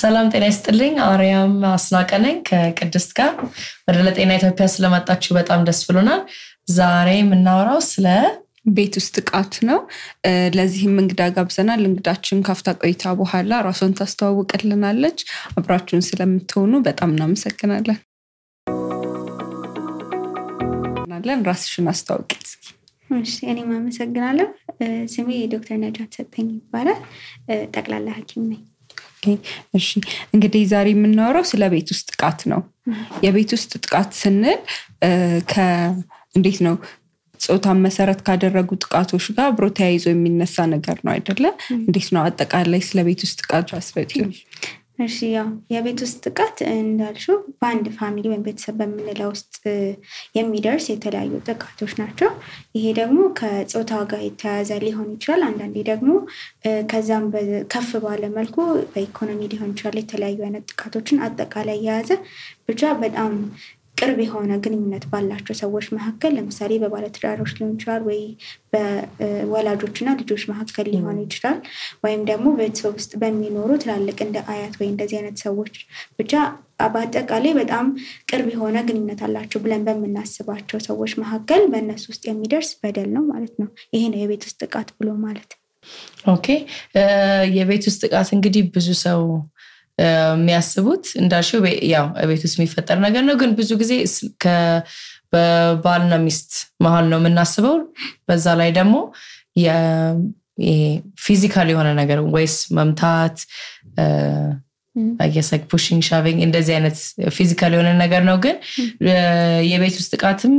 ሰላም ጤና ይስጥልኝ አርያም አስናቀነኝ ከቅድስት ጋር ወደ ለጤና ኢትዮጵያ ስለመጣችሁ በጣም ደስ ብሎናል። ዛሬ የምናወራው ስለ ቤት ውስጥ ጥቃት ነው። ለዚህም እንግዳ ጋብዘናል። እንግዳችን ካፍታ ቆይታ በኋላ ራሷን ታስተዋውቅልናለች። አብራችሁን ስለምትሆኑ በጣም እናመሰግናለን። ራስሽን አስተዋውቂ እስኪ። እሺ እኔም አመሰግናለሁ። ስሜ ዶክተር ነጃት ሰጠኝ ይባላል። ጠቅላላ ሐኪም ነኝ። እሺ እንግዲህ ዛሬ የምናወራው ስለ ቤት ውስጥ ጥቃት ነው። የቤት ውስጥ ጥቃት ስንል እንዴት ነው ጾታን መሰረት ካደረጉ ጥቃቶች ጋር አብሮ ተያይዞ የሚነሳ ነገር ነው አይደለ? እንዴት ነው አጠቃላይ ስለ ቤት ውስጥ ጥቃት አስረጂኝ። እሺ ያው የቤት ውስጥ ጥቃት እንዳልሽው በአንድ ፋሚሊ ወይም ቤተሰብ በምንለው ውስጥ የሚደርስ የተለያዩ ጥቃቶች ናቸው። ይሄ ደግሞ ከጾታ ጋር የተያያዘ ሊሆን ይችላል። አንዳንዴ ደግሞ ከዛም ከፍ ባለ መልኩ በኢኮኖሚ ሊሆን ይችላል። የተለያዩ አይነት ጥቃቶችን አጠቃላይ የያዘ ብቻ በጣም ቅርብ የሆነ ግንኙነት ባላቸው ሰዎች መካከል ለምሳሌ በባለትዳሮች ሊሆን ይችላል ወይ በወላጆችና ልጆች መካከል ሊሆን ይችላል ወይም ደግሞ ቤተሰብ ውስጥ በሚኖሩ ትላልቅ እንደ አያት ወይ እንደዚህ አይነት ሰዎች ብቻ በአጠቃላይ በጣም ቅርብ የሆነ ግንኙነት አላቸው ብለን በመናስባቸው ሰዎች መካከል በእነሱ ውስጥ የሚደርስ በደል ነው ማለት ነው። ይሄ ነው የቤት ውስጥ ጥቃት ብሎ ማለት። ኦኬ የቤት ውስጥ ጥቃት እንግዲህ ብዙ ሰው የሚያስቡት እንዳልሽው ያው ቤት ውስጥ የሚፈጠር ነገር ነው። ግን ብዙ ጊዜ በባልና ሚስት መሃል ነው የምናስበው። በዛ ላይ ደግሞ ፊዚካል የሆነ ነገር ወይስ መምታት I guess like pushing shoving እንደዚህ አይነት ፊዚካል የሆነ ነገር ነው። ግን የቤት ውስጥ ጥቃትም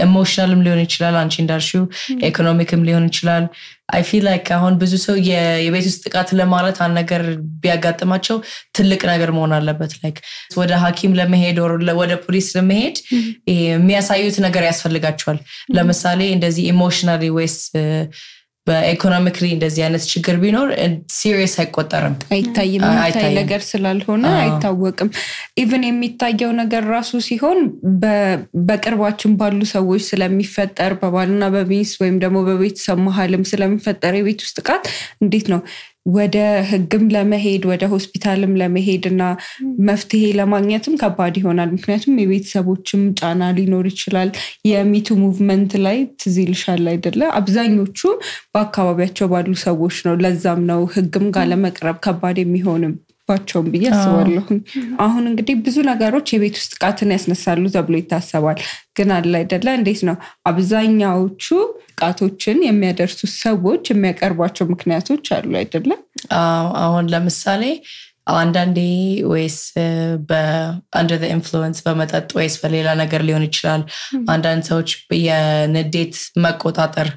ኢሞሽናልም ሊሆን ይችላል። አንቺ እንዳልሽው ኢኮኖሚክም ሊሆን ይችላል። I feel like አሁን ብዙ ሰው የቤት ውስጥ ጥቃት ለማለት አንድ ነገር ቢያጋጥማቸው ትልቅ ነገር መሆን አለበት። like ወደ ሐኪም ለመሄድ ወደ ፖሊስ ለመሄድ የሚያሳዩት ነገር ያስፈልጋቸዋል። ለምሳሌ እንደዚህ ኢሞሽናሊ ወይስ በኢኮኖሚክሊ እንደዚህ አይነት ችግር ቢኖር ሲሪየስ አይቆጠርም። አይታይም ነገር ስላልሆነ አይታወቅም። ኢቭን የሚታየው ነገር ራሱ ሲሆን በቅርባችን ባሉ ሰዎች ስለሚፈጠር በባልና በሚስት ወይም ደግሞ በቤተሰብ መሃልም ስለሚፈጠር የቤት ውስጥ ጥቃት እንዴት ነው ወደ ህግም ለመሄድ ወደ ሆስፒታልም ለመሄድና መፍትሄ ለማግኘትም ከባድ ይሆናል። ምክንያቱም የቤተሰቦችም ጫና ሊኖር ይችላል። የሚቱ ሙቭመንት ላይ ትዝልሻል አይደለ? አብዛኞቹ በአካባቢያቸው ባሉ ሰዎች ነው። ለዛም ነው ህግም ጋር ለመቅረብ ከባድ የሚሆንም ባቸውም ብዬ አስባለሁ። አሁን እንግዲህ ብዙ ነገሮች የቤት ውስጥ ጥቃትን ያስነሳሉ ተብሎ ይታሰባል። ግን አለ አይደለ? እንዴት ነው አብዛኛዎቹ ጥቃቶችን የሚያደርሱ ሰዎች የሚያቀርቧቸው ምክንያቶች አሉ አይደለ? አሁን ለምሳሌ አንዳንዴ ወይስ under the influence በመጠጥ ወይስ በሌላ ነገር ሊሆን ይችላል። አንዳንድ ሰዎች የንዴት መቆጣጠር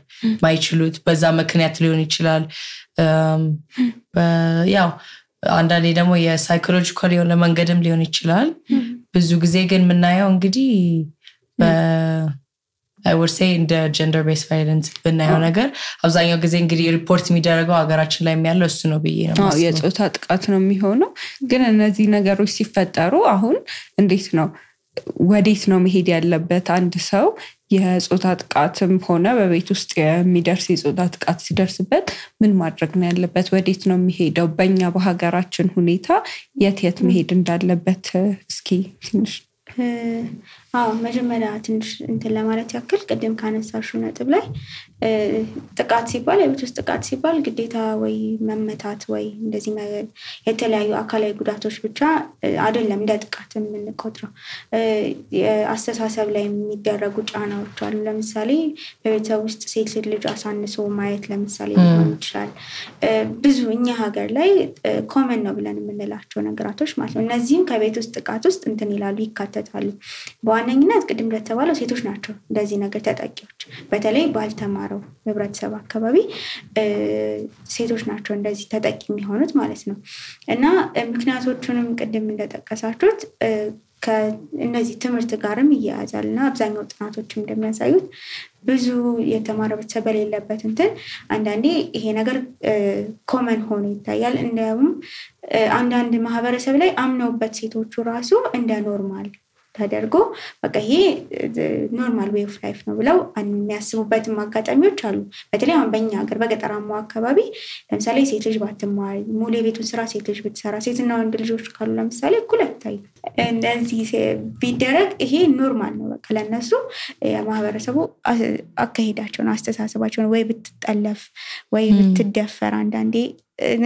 ማይችሉት በዛ ምክንያት ሊሆን ይችላል። ያው አንዳንዴ ደግሞ የሳይኮሎጂካል የሆነ መንገድም ሊሆን ይችላል። ብዙ ጊዜ ግን የምናየው እንግዲህ I would say in the gender based violence በእናየው ነገር አብዛኛው ጊዜ እንግዲህ ሪፖርት የሚደረገው ሀገራችን ላይ የሚያለው እሱ ነው ብዬ ነው። የጾታ ጥቃት ነው የሚሆነው። ግን እነዚህ ነገሮች ሲፈጠሩ አሁን እንዴት ነው ወዴት ነው መሄድ ያለበት? አንድ ሰው የጾታ ጥቃትም ሆነ በቤት ውስጥ የሚደርስ የጾታ ጥቃት ሲደርስበት ምን ማድረግ ነው ያለበት? ወዴት ነው የሚሄደው? በእኛ በሀገራችን ሁኔታ የት መሄድ እንዳለበት እስኪ ትንሽ መጀመሪያ ትንሽ እንትን ለማለት ያክል ቅድም ካነሳሽው ነጥብ ላይ ጥቃት ሲባል የቤት ውስጥ ጥቃት ሲባል ግዴታ ወይ መመታት ወይ እንደዚህ የተለያዩ አካላዊ ጉዳቶች ብቻ አይደለም እንደ ጥቃት የምንቆጥረው። አስተሳሰብ ላይ የሚደረጉ ጫናዎች አሉ። ለምሳሌ በቤተሰብ ውስጥ ሴት ልጅ አሳንሶ ማየት ለምሳሌ ሊሆን ይችላል። ብዙ እኛ ሀገር ላይ ኮመን ነው ብለን የምንላቸው ነገራቶች ማለት ነው። እነዚህም ከቤት ውስጥ ጥቃት ውስጥ እንትን ይላሉ ይካተታሉ። በዋነኝነት ቅድም እንደተባለው ሴቶች ናቸው እንደዚህ ነገር ተጠቂዎች። በተለይ ባልተማረው ህብረተሰብ አካባቢ ሴቶች ናቸው እንደዚህ ተጠቂ የሚሆኑት ማለት ነው። እና ምክንያቶቹንም ቅድም እንደጠቀሳችሁት ከእነዚህ ትምህርት ጋርም ይያያዛልና አብዛኛው ጥናቶችም እንደሚያሳዩት ብዙ የተማረ ቤተሰብ በሌለበት እንትን አንዳንዴ ይሄ ነገር ኮመን ሆኖ ይታያል። እንደውም አንዳንድ ማህበረሰብ ላይ አምነውበት ሴቶቹ ራሱ እንደ ኖርማል ተደርጎ በቃ ይሄ ኖርማል ዌይ ኦፍ ላይፍ ነው ብለው የሚያስቡበትም አጋጣሚዎች አሉ። በተለይ አሁን በእኛ ሀገር በገጠራማው አካባቢ ለምሳሌ ሴት ልጅ ባትማር ሙሉ የቤቱን ስራ ሴት ልጅ ብትሰራ ሴትና ወንድ ልጆች ካሉ ለምሳሌ እኩል አይታይም። እንደዚህ ቢደረግ ይሄ ኖርማል ነው በቃ ለነሱ የማህበረሰቡ አካሄዳቸውን አስተሳሰባቸውን ወይ ብትጠለፍ ወይ ብትደፈር አንዳንዴ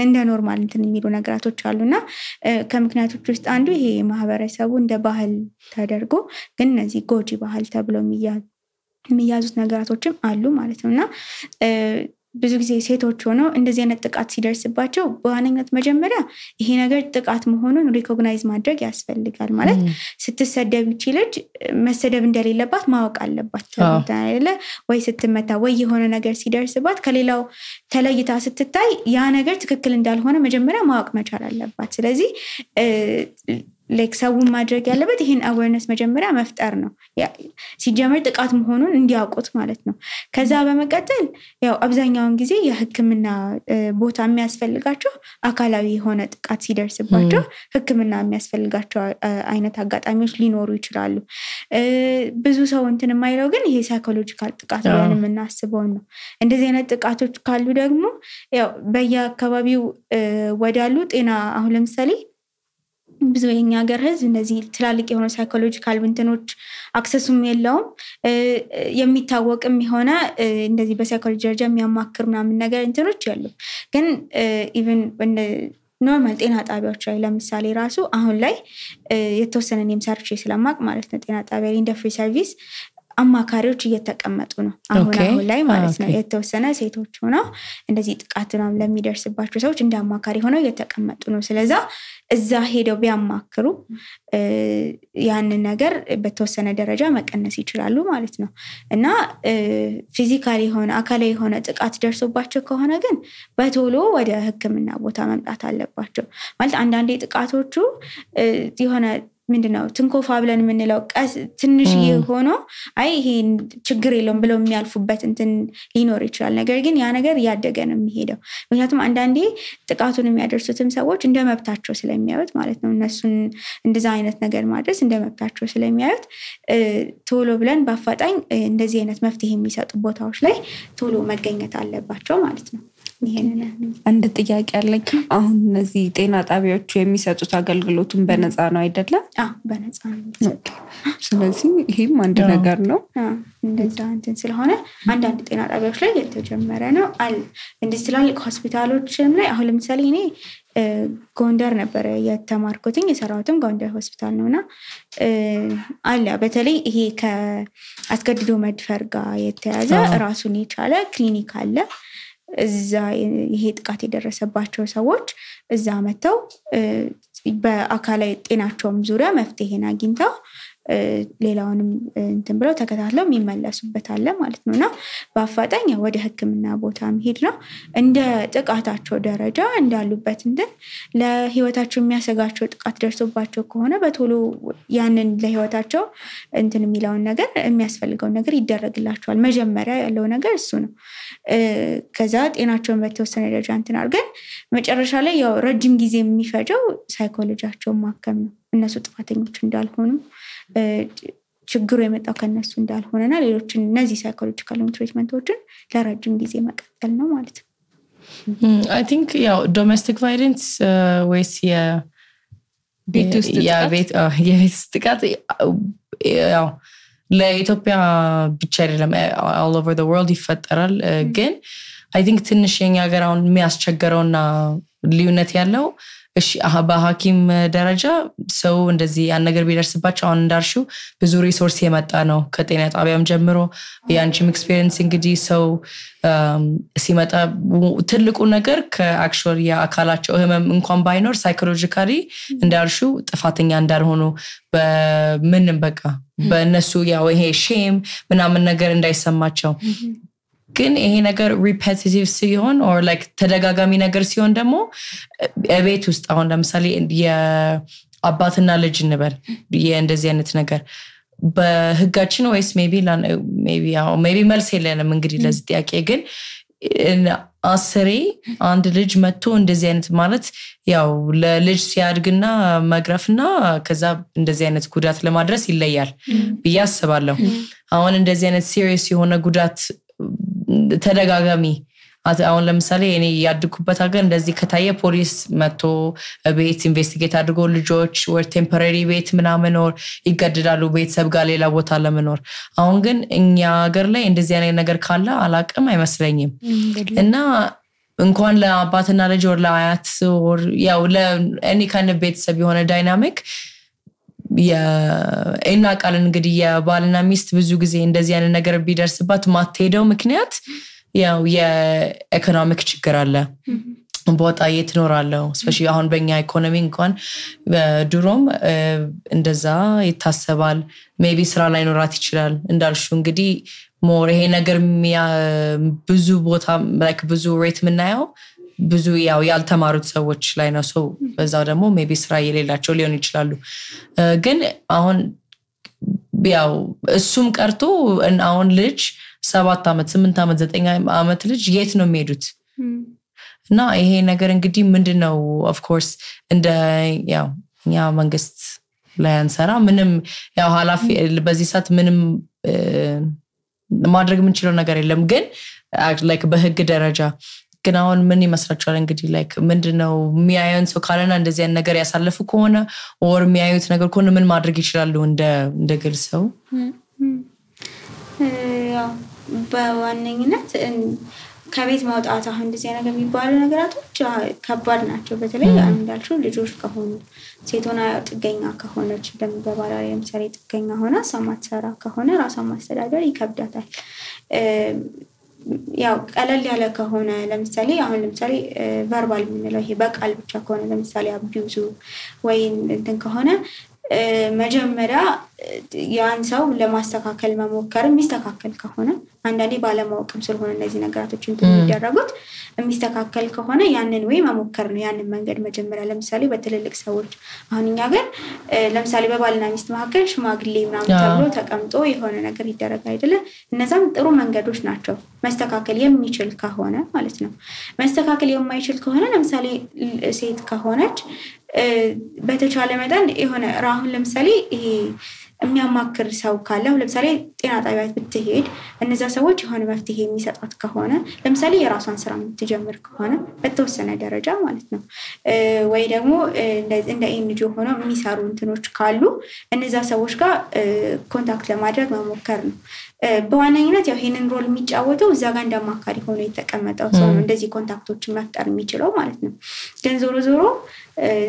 እንደ ኖርማል እንትን የሚሉ ነገራቶች አሉና ከምክንያቶች ውስጥ አንዱ ይሄ ማህበረሰቡ እንደ ባህል ተደርጎ ግን እነዚህ ጎጂ ባህል ተብሎ የሚያዙት ነገራቶችም አሉ ማለት ነውና ብዙ ጊዜ ሴቶች ሆነው እንደዚህ አይነት ጥቃት ሲደርስባቸው በዋነኝነት መጀመሪያ ይሄ ነገር ጥቃት መሆኑን ሪኮግናይዝ ማድረግ ያስፈልጋል። ማለት ስትሰደብ ይችላል መሰደብ እንደሌለባት ማወቅ አለባት አይደለ ወይ ስትመታ ወይ የሆነ ነገር ሲደርስባት ከሌላው ተለይታ ስትታይ ያ ነገር ትክክል እንዳልሆነ መጀመሪያ ማወቅ መቻል አለባት። ስለዚህ ላይክ ሰውን ማድረግ ያለበት ይሄን አዌርነስ መጀመሪያ መፍጠር ነው ሲጀመር ጥቃት መሆኑን እንዲያውቁት ማለት ነው። ከዛ በመቀጠል ያው አብዛኛውን ጊዜ የህክምና ቦታ የሚያስፈልጋቸው አካላዊ የሆነ ጥቃት ሲደርስባቸው ህክምና የሚያስፈልጋቸው አይነት አጋጣሚዎች ሊኖሩ ይችላሉ። ብዙ ሰው እንትን የማይለው ግን ይሄ ሳይኮሎጂካል ጥቃት ብለን የምናስበው ነው። እንደዚህ አይነት ጥቃቶች ካሉ ደግሞ ያው በየአካባቢው ወዳሉ ጤና አሁን ለምሳሌ ብዙ የኛ ሀገር ህዝብ እንደዚህ ትላልቅ የሆነ ሳይኮሎጂካል እንትኖች አክሰሱም የለውም የሚታወቅም የሆነ እንደዚህ በሳይኮሎጂ ደረጃ የሚያማክር ምናምን ነገር እንትኖች ያሉ ግን ኢቭን ኖርማል ጤና ጣቢያዎች ላይ ለምሳሌ ራሱ አሁን ላይ የተወሰነ እኔም ሰርቼ ስለማቅ ማለት ነው ጤና ጣቢያ ላይ እንደ ፍሪ ሰርቪስ አማካሪዎች እየተቀመጡ ነው አሁን ላይ ማለት ነው። የተወሰነ ሴቶች ሆነው እንደዚህ ጥቃትና ለሚደርስባቸው ሰዎች እንደ አማካሪ ሆነው እየተቀመጡ ነው። ስለዚህ እዛ ሄደው ቢያማክሩ ያንን ነገር በተወሰነ ደረጃ መቀነስ ይችላሉ ማለት ነው። እና ፊዚካሊ ሆነ አካላዊ የሆነ ጥቃት ደርሶባቸው ከሆነ ግን በቶሎ ወደ ህክምና ቦታ መምጣት አለባቸው። ማለት አንዳንዴ ጥቃቶቹ የሆነ ምንድነው ትንኮፋ ብለን የምንለው ትንሽ ሆኖ አይ ይሄ ችግር የለውም ብለው የሚያልፉበት እንትን ሊኖር ይችላል። ነገር ግን ያ ነገር ያደገ ነው የሚሄደው። ምክንያቱም አንዳንዴ ጥቃቱን የሚያደርሱትም ሰዎች እንደ መብታቸው ስለሚያዩት ማለት ነው እነሱን እንደዛ አይነት ነገር ማድረስ እንደ መብታቸው ስለሚያዩት ቶሎ ብለን በአፋጣኝ እንደዚህ አይነት መፍትሄ የሚሰጡ ቦታዎች ላይ ቶሎ መገኘት አለባቸው ማለት ነው። አንድ ጥያቄ አለኝ። አሁን እነዚህ ጤና ጣቢያዎች የሚሰጡት አገልግሎቱን በነፃ ነው አይደለም? በነፃ ነው። ስለዚህ ይሄም አንድ ነገር ነው። እንደዛ እንትን ስለሆነ አንዳንድ ጤና ጣቢያዎች ላይ የተጀመረ ነው አለ። እንደዚህ ትላልቅ ሆስፒታሎችም ላይ አሁን ለምሳሌ እኔ ጎንደር ነበር የተማርኩትኝ የሰራሁትም ጎንደር ሆስፒታል ነውና አለ በተለይ ይሄ ከአስገድዶ መድፈር ጋር የተያዘ ራሱን የቻለ ክሊኒክ አለ። እዛ ይሄ ጥቃት የደረሰባቸው ሰዎች እዛ መተው በአካላዊ ጤናቸውም ዙሪያ መፍትሄን አግኝተው ሌላውንም እንትን ብለው ተከታትለው የሚመለሱበት አለ ማለት ነውና በአፋጣኝ ወደ ህክምና ቦታ መሄድ ነው። እንደ ጥቃታቸው ደረጃ እንዳሉበት እንትን ለህይወታቸው የሚያሰጋቸው ጥቃት ደርሶባቸው ከሆነ በቶሎ ያንን ለህይወታቸው እንትን የሚለውን ነገር የሚያስፈልገውን ነገር ይደረግላቸዋል። መጀመሪያ ያለው ነገር እሱ ነው። ከዛ ጤናቸውን በተወሰነ ደረጃ እንትን አድርገን መጨረሻ ላይ ያው ረጅም ጊዜ የሚፈጀው ሳይኮሎጂያቸውን ማከም ነው። እነሱ ጥፋተኞች እንዳልሆኑ ችግሩ የመጣው ከነሱ እንዳልሆነና ሌሎችን እነዚህ ሳይኮሎጂካል ትሪትመንቶችን ለረጅም ጊዜ መቀጠል ነው ማለት ነው። I think ያው ዶሜስቲክ ቫዮለንስ ወይስ የቤት ውስጥ ጥቃት ያው ለኢትዮጵያ ብቻ አይደለም all over the world ይፈጠራል። ግን I think ትንሽ የኛ ሀገር አሁን የሚያስቸግረውና ልዩነት ያለው እሺ በሐኪም ደረጃ ሰው እንደዚህ ያን ነገር ቢደርስባቸው አሁን እንዳልሽው ብዙ ሪሶርስ የመጣ ነው ከጤና ጣቢያም ጀምሮ ያንቺም ኤክስፒሪየንስ እንግዲህ ሰው ሲመጣ ትልቁ ነገር ከአክቹዋሊ የአካላቸው ህመም እንኳን ባይኖር ሳይኮሎጂካሊ እንዳልሽው ጥፋተኛ እንዳልሆኑ በምንም በቃ በእነሱ ያው ይሄ ሼም ምናምን ነገር እንዳይሰማቸው ግን ይሄ ነገር ሪፔቲቲቭ ሲሆን or like ተደጋጋሚ ነገር ሲሆን ደግሞ ቤት ውስጥ አሁን ለምሳሌ የአባትና ልጅ እንበል እንደዚህ አይነት ነገር በህጋችን ወይስ ሜቢ መልስ የለንም እንግዲህ ለዚህ ጥያቄ ግን አስሬ አንድ ልጅ መጥቶ እንደዚህ አይነት ማለት ያው ለልጅ ሲያድግና መግረፍና ከዛ እንደዚህ አይነት ጉዳት ለማድረስ ይለያል ብዬ አስባለሁ አሁን እንደዚህ አይነት ሲሪየስ የሆነ ጉዳት ተደጋጋሚ አሁን ለምሳሌ እኔ ያድኩበት ሀገር እንደዚህ ከታየ ፖሊስ መጥቶ ቤት ኢንቨስቲጌት አድርጎ ልጆች ወር ቴምፖራሪ ቤት ምናምን ወር ይገደዳሉ ቤተሰብ ጋር ሌላ ቦታ ለመኖር አሁን ግን እኛ ሀገር ላይ እንደዚህ አይነት ነገር ካለ አላቅም አይመስለኝም እና እንኳን ለአባትና ልጅ ወር ለአያት ወር ያው ለእኔ kind of ቤተሰብ የሆነ ዳይናሚክ እና ቃል እንግዲህ የባልና ሚስት ብዙ ጊዜ እንደዚህ አይነት ነገር ቢደርስባት ማትሄደው ምክንያት ያው የኢኮኖሚክ ችግር አለ ቦታ የትኖራለው ስፔሻሊ አሁን በእኛ ኢኮኖሚ እንኳን ድሮም እንደዛ ይታሰባል ሜቢ ስራ ላይ ኖራት ይችላል እንዳልሹ እንግዲህ ሞር ይሄ ነገር ብዙ ቦታ like ብዙ ሬት ምናየው ብዙ ያው ያልተማሩት ሰዎች ላይ ነው ሰው በዛው ደግሞ ሜቢ ስራ የሌላቸው ሊሆን ይችላሉ ግን አሁን ያው እሱም ቀርቶ አሁን ልጅ 7 አመት 8 አመት 9 አመት ልጅ የት ነው የሚሄዱት እና ይሄ ነገር እንግዲህ ምንድነው ኦፍ ኮርስ እንደ ያው ኛ መንግስት ላይ አንሰራ ምንም ያው ኃላፊ በዚህ ሰዓት ምንም ማድረግ የምንችለው ነገር የለም ግን like በህግ ደረጃ ግን አሁን ምን ይመስላችኋል እንግዲህ like ምንድነው የሚያዩን ሰው ካለና እንደዚህ አይነት ነገር ያሳለፉ ከሆነ or የሚያዩት ነገር ከሆነ ምን ማድረግ ይችላሉ እንደ ግል ሰው ያው በዋነኝነት ከቤት ማውጣት አሁን እንደዚህ ነገር የሚባሉ ነገራቶች ከባድ ናቸው በተለይ እንዳልሽው ልጆች ከሆኑ ሴቶና ጥገኛ ከሆነች በባላሪ ለምሳሌ ጥገኛ ሆና ሰማትሰራ ከሆነ ራሷን ማስተዳደር ይከብዳታል ያው ቀለል ያለ ከሆነ ለምሳሌ ቨርባል ምንለው ይሄ በቃል ብቻ ከሆነ ለምሳሌ አቢዩዝ ወይ እንትን ከሆነ መጀመሪያ ያን ሰው ለማስተካከል መሞከር የሚስተካከል ከሆነ አንዳንዴ ባለማወቅም ስለሆነ እነዚህ ነገራቶች እንደሚደረጉት የሚስተካከል ከሆነ ያንን ወይ መሞከር ነው ያንን መንገድ መጀመሪያ ለምሳሌ በትልልቅ ሰዎች አሁን እኛ ጋር ለምሳሌ በባልና ሚስት መካከል ሽማግሌ ምናምን ተብሎ ተቀምጦ የሆነ ነገር ይደረግ አይደለ እነዛም ጥሩ መንገዶች ናቸው መስተካከል የሚችል ከሆነ ማለት ነው መስተካከል የማይችል ከሆነ ለምሳሌ ሴት ከሆነች በተቻለ መጠን የሆነ ራሁን ለምሳሌ ይሄ የሚያማክር ሰው ካለ ለምሳሌ ጤና ጣቢያ ብትሄድ እነዛ ሰዎች የሆነ መፍትሄ የሚሰጣት ከሆነ ለምሳሌ የራሷን ስራ የምትጀምር ከሆነ በተወሰነ ደረጃ ማለት ነው ወይ ደግሞ እንደ ኤንጂኦ ሆነው የሚሰሩ እንትኖች ካሉ እነዛ ሰዎች ጋር ኮንታክት ለማድረግ መሞከር ነው በዋነኝነት ያው ይሄንን ሮል የሚጫወተው እዛ ጋር እንደማካሪ ሆኖ የተቀመጠው ሰው ነው እንደዚህ ኮንታክቶችን መፍጠር የሚችለው ማለት ነው ግን ዞሮ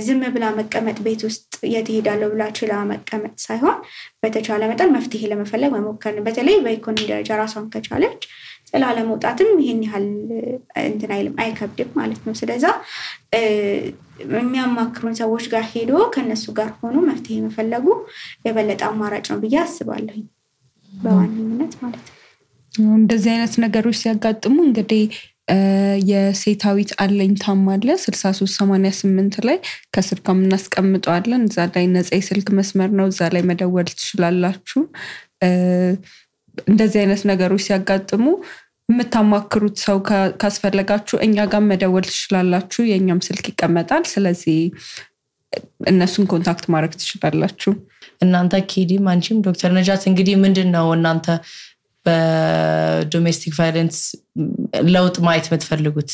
ዝም ብላ መቀመጥ ቤት ውስጥ የትሄዳለው ብላ ችላ መቀመጥ ሳይሆን በተቻለ መጠን መፍትሄ ለመፈለግ መሞከር ነው በተለይ በኢኮኖሚ ደረጃ ራሷን ከቻለች ጥላ ለመውጣትም ይሄን ያህል እንትን አይከብድም ማለት ነው ስለዚህ የሚያማክሩን ሰዎች ጋር ሄዶ ከነሱ ጋር ሆኖ መፍትሄ መፈለጉ የበለጠ አማራጭ ነው ብዬ አስባለሁ በዋነኝነት ማለት ነው እንደዚህ አይነት ነገሮች ሲያጋጥሙ እንግዲህ የሴታዊት አለኝታም አለ 6388 ላይ ከስር ከምናስቀምጠዋለን እዛ ላይ ነፃ የስልክ መስመር ነው እዛ ላይ መደወል ትችላላችሁ እንደዚህ አይነት ነገሮች ሲያጋጥሙ የምታማክሩት ሰው ካስፈለጋችሁ እኛ ጋር መደወል ትችላላችሁ የኛም ስልክ ይቀመጣል ስለዚህ እነሱን ኮንታክት ማድረግ ትችላላችሁ እናንተ ኪዲም አንቺም ዶክተር ነጃት እንግዲህ ምንድነው እናንተ በዶሜስቲክ ቫዮለንስ ለውጥ ማየት የምትፈልጉት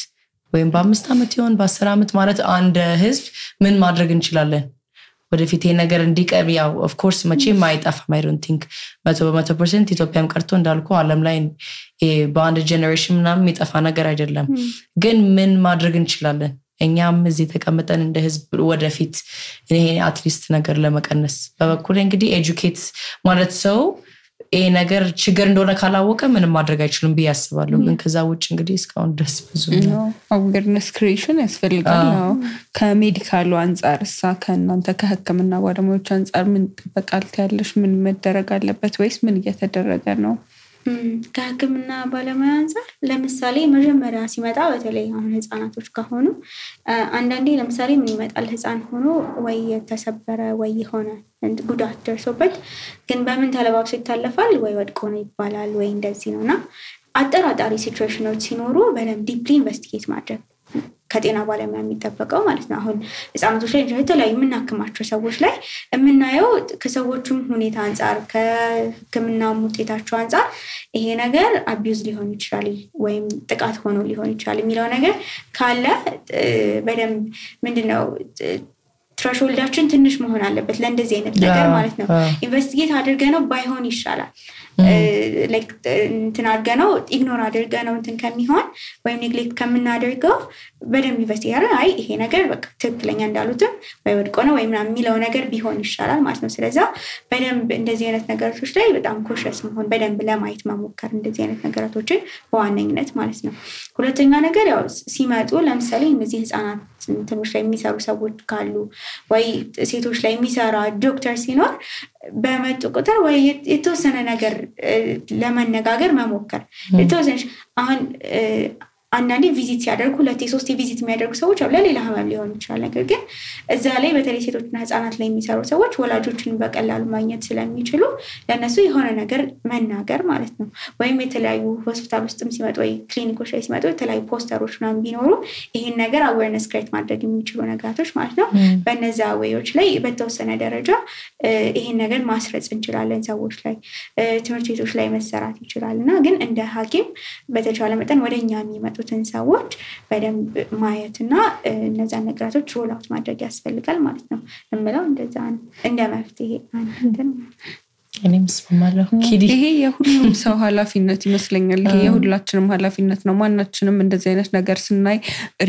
ወይም በ5 አመት ይሆን በ10 አመት ማለት አንድ ህዝብ ምን ማድረግ እንችላለን ወደፊት ይሄ ነገር እንዲቀር ያው ኦፍ ኮርስ መቼም አይጣፋም I don't think 100% ኢትዮጵያም ቀርቶ እንዳልኩ ዓለም ላይ በአንድ ጄነሬሽን ምናምን የሚጠፋ ነገር አይደለም ግን ምን ማድረግ እንችላለን እኛም እዚህ ተቀምጠን እንደ ህዝብ ወደፊት ይሄ አትሊስት ነገር ለመቀነስ በበኩል እንግዲህ ኤጁኬት ማለት ሰው ይሄ ነገር ችግር እንደሆነ ካላወቀ ምንም ማድረግ አይችልም ቢያስባለሁ ግን ከዛ ውጭ እንግዲህ እስካሁን ድረስ ብዙ ነው አዌርነስ ክሬሽን ያስፈልጋል ከሜዲካሉ አንፃር ከእናንተ ከህክምና ባለሙያዎች አንፃር ምን ተጠቃል ያለሽ ምን መደረግ አለበት ወይስ ምን እየተደረገ ነው ከህክምና ባለሙያ አንፃር ለምሳሌ መጀመሪያ ሲመጣ በተለይ አሁን ህፃናቶች ከሆኑ አንዳንዴ ለምሳሌ ምን ይመጣል ህፃን ሆኖ ወይ የተሰበረ ወይ ሆነ ጉዳት ደርሶበት ግን በምን ተለባብሶ ይታለፋል ወይ ወድቆ ነው ይባላል ወይ እንደዚህ ነውና አጠራጣሪ ሲቹዌሽኖች ሲኖሩ በደንብ ዲፕሊ ኢንቨስቲጌት ማድረግ ከጤና ባለሙያ የሚጠበቀው ማለት ነው። አሁን ህፃናቶች ላይ የተለያዩ የምናክማቸው ሰዎች ላይ የምናየው ከሰዎቹም ሁኔታ አንጻር ከህክምናው ውጤታቸው አንጻር ይሄ ነገር አቢዩዝ ሊሆን ይችላል ወይም ጥቃት ሆኖ ሊሆን ይችላል የሚለው ነገር ካለ በደንብ ምንድነው ትራሾልዳችን ትንሽ መሆን አለበት ለእንደዚህ አይነት ነገር ማለት ነው። ኢንቨስቲጌት አድርገነው ባይሆን ይሻላል ላይክ እንትን አድርገነው ኢግኖር አድርገነው እንትን ከሚሆን ወይም ኔግሌክት ከምናደርገው በደንብ ኢንቨስቲጌት አድርገን አይ ይሄ ነገር በቃ ትክክለኛ እንዳሉትም ወይ ወድቆ ነው ወይ ምናምን የሚለው ነገር ቢሆን ይሻላል ማለት ነው። ስለዚህ በደንብ እንደዚህ አይነት ነገሮች ላይ በጣም ኮሸስ መሆን በደንብ ለማየት መሞከር እንደዚህ አይነት ነገሮችን በዋነኝነት ማለት ነው። ሁለተኛ ነገር ያው ሲመጡ ለምሳሌ እነዚህ ህፃናት እንትኖች ላይ የሚሰሩ ሰዎች ካሉ ወይ ሴቶች ላይ የሚሰራ ዶክተር ሲኖር በመጡ ቁጥር ወይ የተወሰነ ነገር ለመነጋገር መሞከር የተወሰነ አሁን አንዳንዴ ቪዚት ሲያደርጉ 2-3 ቪዚት የሚያደርጉ ሰዎች አሉ ለሌላ ህመም ሊሆን ይችላል። ነገር ግን እዛ ላይ በተለይ ሴቶችና ህፃናት ላይ የሚሰሩ ሰዎች ወላጆችን በቀላሉ ማግኘት ስለሚችሉ ለነሱ የሆነ ነገር መናገር ማለት ነው። ወይም የተለያዩ ሆስፒታል ውስጥም ሲመጡ ወይ ክሊኒኮች ላይ ሲመጡ የተለያዩ ፖስተሮች ምናምን ቢኖሩ ይሄን ነገር አዌርነስ ክሬት ማድረግ የሚችሉ ነገራቶች ማለት ነው። በእነዛ ዌዮች ላይ በተወሰነ ደረጃ ይሄን ነገር ማስረጽ እንችላለን ሰዎች ላይ ትምህርት ቤቶች ላይ መሰራት ይችላልና ግን እንደ ሐኪም በተቻለ መጠን ወደኛ የሚመጡ ሰዎች በደንብ ማየትና እነዛ ነገራቶች ሮል አውት ማድረግ ያስፈልጋል ማለት ነው። እምለው እንደዛ ነው እንደ መፍትሄ አንተን እኔም ስማማለሁ። ይሄ የሁሉም ሰው ኃላፊነት ይመስለኛል። ይሄ የሁላችንም ኃላፊነት ነው። ማናችንም እንደዚህ አይነት ነገር ስናይ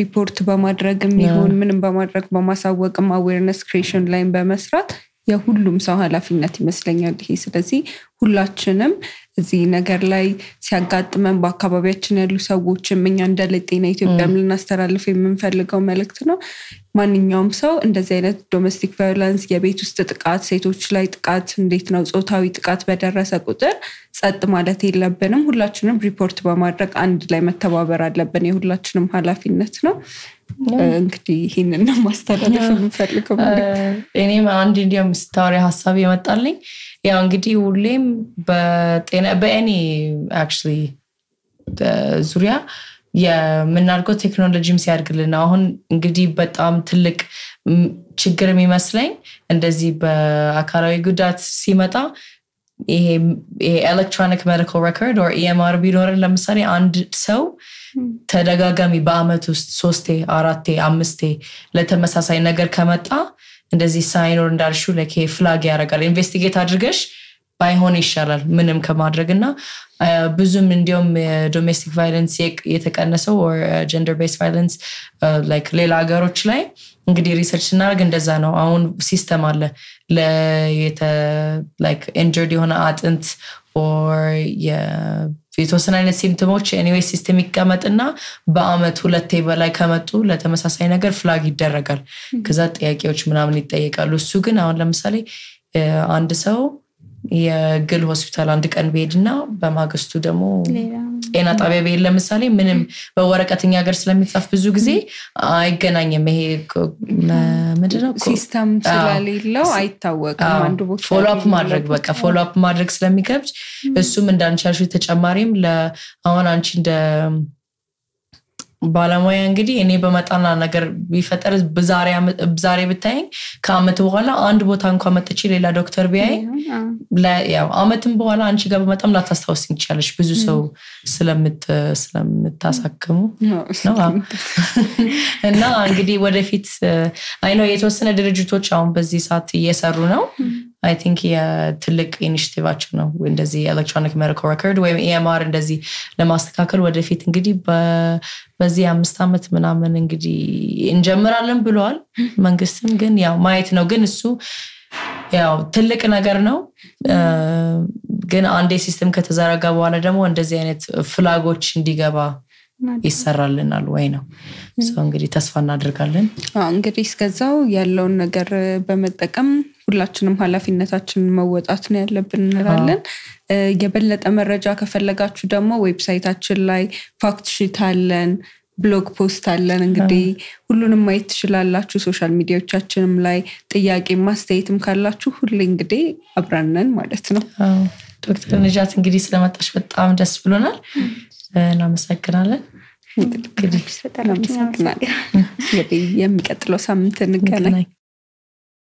ሪፖርት በማድረግም ይሁን ምንም በማድረግ በማሳወቅም አዌርነስ ክሬሽን ላይ በመስራት የሁሉም ሰው ኃላፊነት ይመስለኛል ይሄ። ስለዚህ ሁላችንም እዚህ ነገር ላይ ሲያጋጥመን በአካባቢያችን ያሉ ሰዎችም እኛ እንደ ለጤና ኢትዮጵያም ልናስተላልፍ የምንፈልገው መልእክት ነው። ማንኛውም ሰው እንደዚህ አይነት ዶሜስቲክ ቫዮለንስ የቤት ውስጥ ጥቃት ሴቶች ላይ ጥቃት እንዴት ነው ጾታዊ ጥቃት በደረሰ ቁጥር ጸጥ ማለት የለብንም። ሁላችንም ሪፖርት በማድረግ አንድ ላይ መተባበር አለብን። የሁላችንም ኃላፊነት ነው። እንግዲህ ይሄንን ነው ማስተላለፍ የምፈልገው። እኔም አንድ እንዲያም ስታወሪ ሐሳብ የመጣልኝ ያው እንግዲህ ሁሌም በጤና በእኔ actually ዙሪያ የምናልከው ቴክኖሎጂም ሲያድግልና አሁን እንግዲህ በጣም ትልቅ ችግር የሚመስለኝ እንደዚህ በአካላዊ ጉዳት ሲመጣ ይሄ ኤሌክትሮኒክ ሜዲካል ሬኮርድ or EMR ቢኖርን ለምሳሌ አንድ ሰው ተደጋጋሚ በአመት ውስጥ 3 4 5 ለተመሳሳይ ነገር ከመጣ እንደዚህ ሳይኖር እንዳልሹ ለኬ ፍላግ ያደርጋል። ኢንቨስቲጌት አድርገሽ ባይሆን ይሻላል ምንም ከማድረግና ብዙም እንዲያውም ዶሜስቲክ ቫዮለንስ የተቀነሰው or gender based violence like ሌላ ሀገሮች ላይ እንግዲህ ሪሰርች እናደርግ እንደዛ ነው። አሁን ሲስተም አለ like injured የሆነ አጥንት or የተወሰነ አይነት ሲምፕቶሞች anyway ሲስተም ይቀመጥና በአመት 2 በላይ ከመጡ ለተመሳሳይ ነገር ፍላግ ይደረጋል። ከዛ ጥያቄዎች ምናምን ይጠየቃሉ። እሱ ግን አሁን ለምሳሌ አንድ ሰው የግል ሆስፒታል አንድ ቀን ቢሄድና በማግስቱ ደግሞ ጤና ጣቢያ ቢሄድ ለምሳሌ ምንም በወረቀተኛ ሀገር ስለሚጻፍ ብዙ ጊዜ አይገናኝም። ይሄ ምንድነው ሲስተም ስለሌለው አይታወቅም። አንዱ ቦታ ፎሎ አፕ ማድረግ በቃ ፎሎ አፕ ማድረግ ስለሚከብድ እሱም እንዳንቻልሽ ተጨማሪም ለአሁን አንቺ እንደ ባለሙያ እንግዲህ እኔ በመጣና ነገር ቢፈጠር ዛሬ ብታይኝ ከአመት በኋላ አንድ ቦታ እንኳን መጥቼ ሌላ ዶክተር ቢያይ ያው አመትም በኋላ አንቺ ጋር በመጣም ላታስታውስኝ ይችላልሽ ብዙ ሰው ስለምታሳክሙ ነው። እና እንግዲህ ወደፊት አይ ነው የተወሰነ ድርጅቶች አሁን በዚህ ሰዓት እየሰሩ ነው። I think የትልቅ ኢኒሺቲቫችን ነው እንደዚህ ኤሌክትሮኒክ ሜዲካል ሬኮርድ ወይም EMR እንደዚህ ለማስተካከል ወደፊት እንግዲህ በዚህ 5 አመት ምናምን እንግዲህ እንጀምራለን ብለዋል መንግስትም። ግን ያው ማየት ነው። ግን እሱ ያው ትልቅ ነገር ነው። ግን አንዴ ሲስተም ከተዘረጋ በኋላ ደግሞ እንደዚህ አይነት ፍላጎች እንዲገባ ይሰራልናል ወይ ነው እንግዲህ ተስፋ እናደርጋለን። እንግዲህ እስከዛው ያለውን ነገር በመጠቀም ሁላችንም ኃላፊነታችንን መወጣት ነው ያለብን እንላለን። የበለጠ መረጃ ከፈለጋችሁ ደግሞ ዌብሳይታችን ላይ ፋክት ሺት አለን። ብሎግ ፖስት አለን እንግዲህ ሁሉንም ማየት ትችላላችሁ ሶሻል ሚዲያዎቻችንም ላይ ጥያቄ ማስተያየትም ካላችሁ ሁሉ እንግዲህ አብራነን ማለት ነው ዶክተር ነጃት እንግዲህ ስለመጣሽ በጣም ደስ ብሎናል እናመሰግናለን እንግዲህ የሚቀጥለው ሳምንት እንገናኝ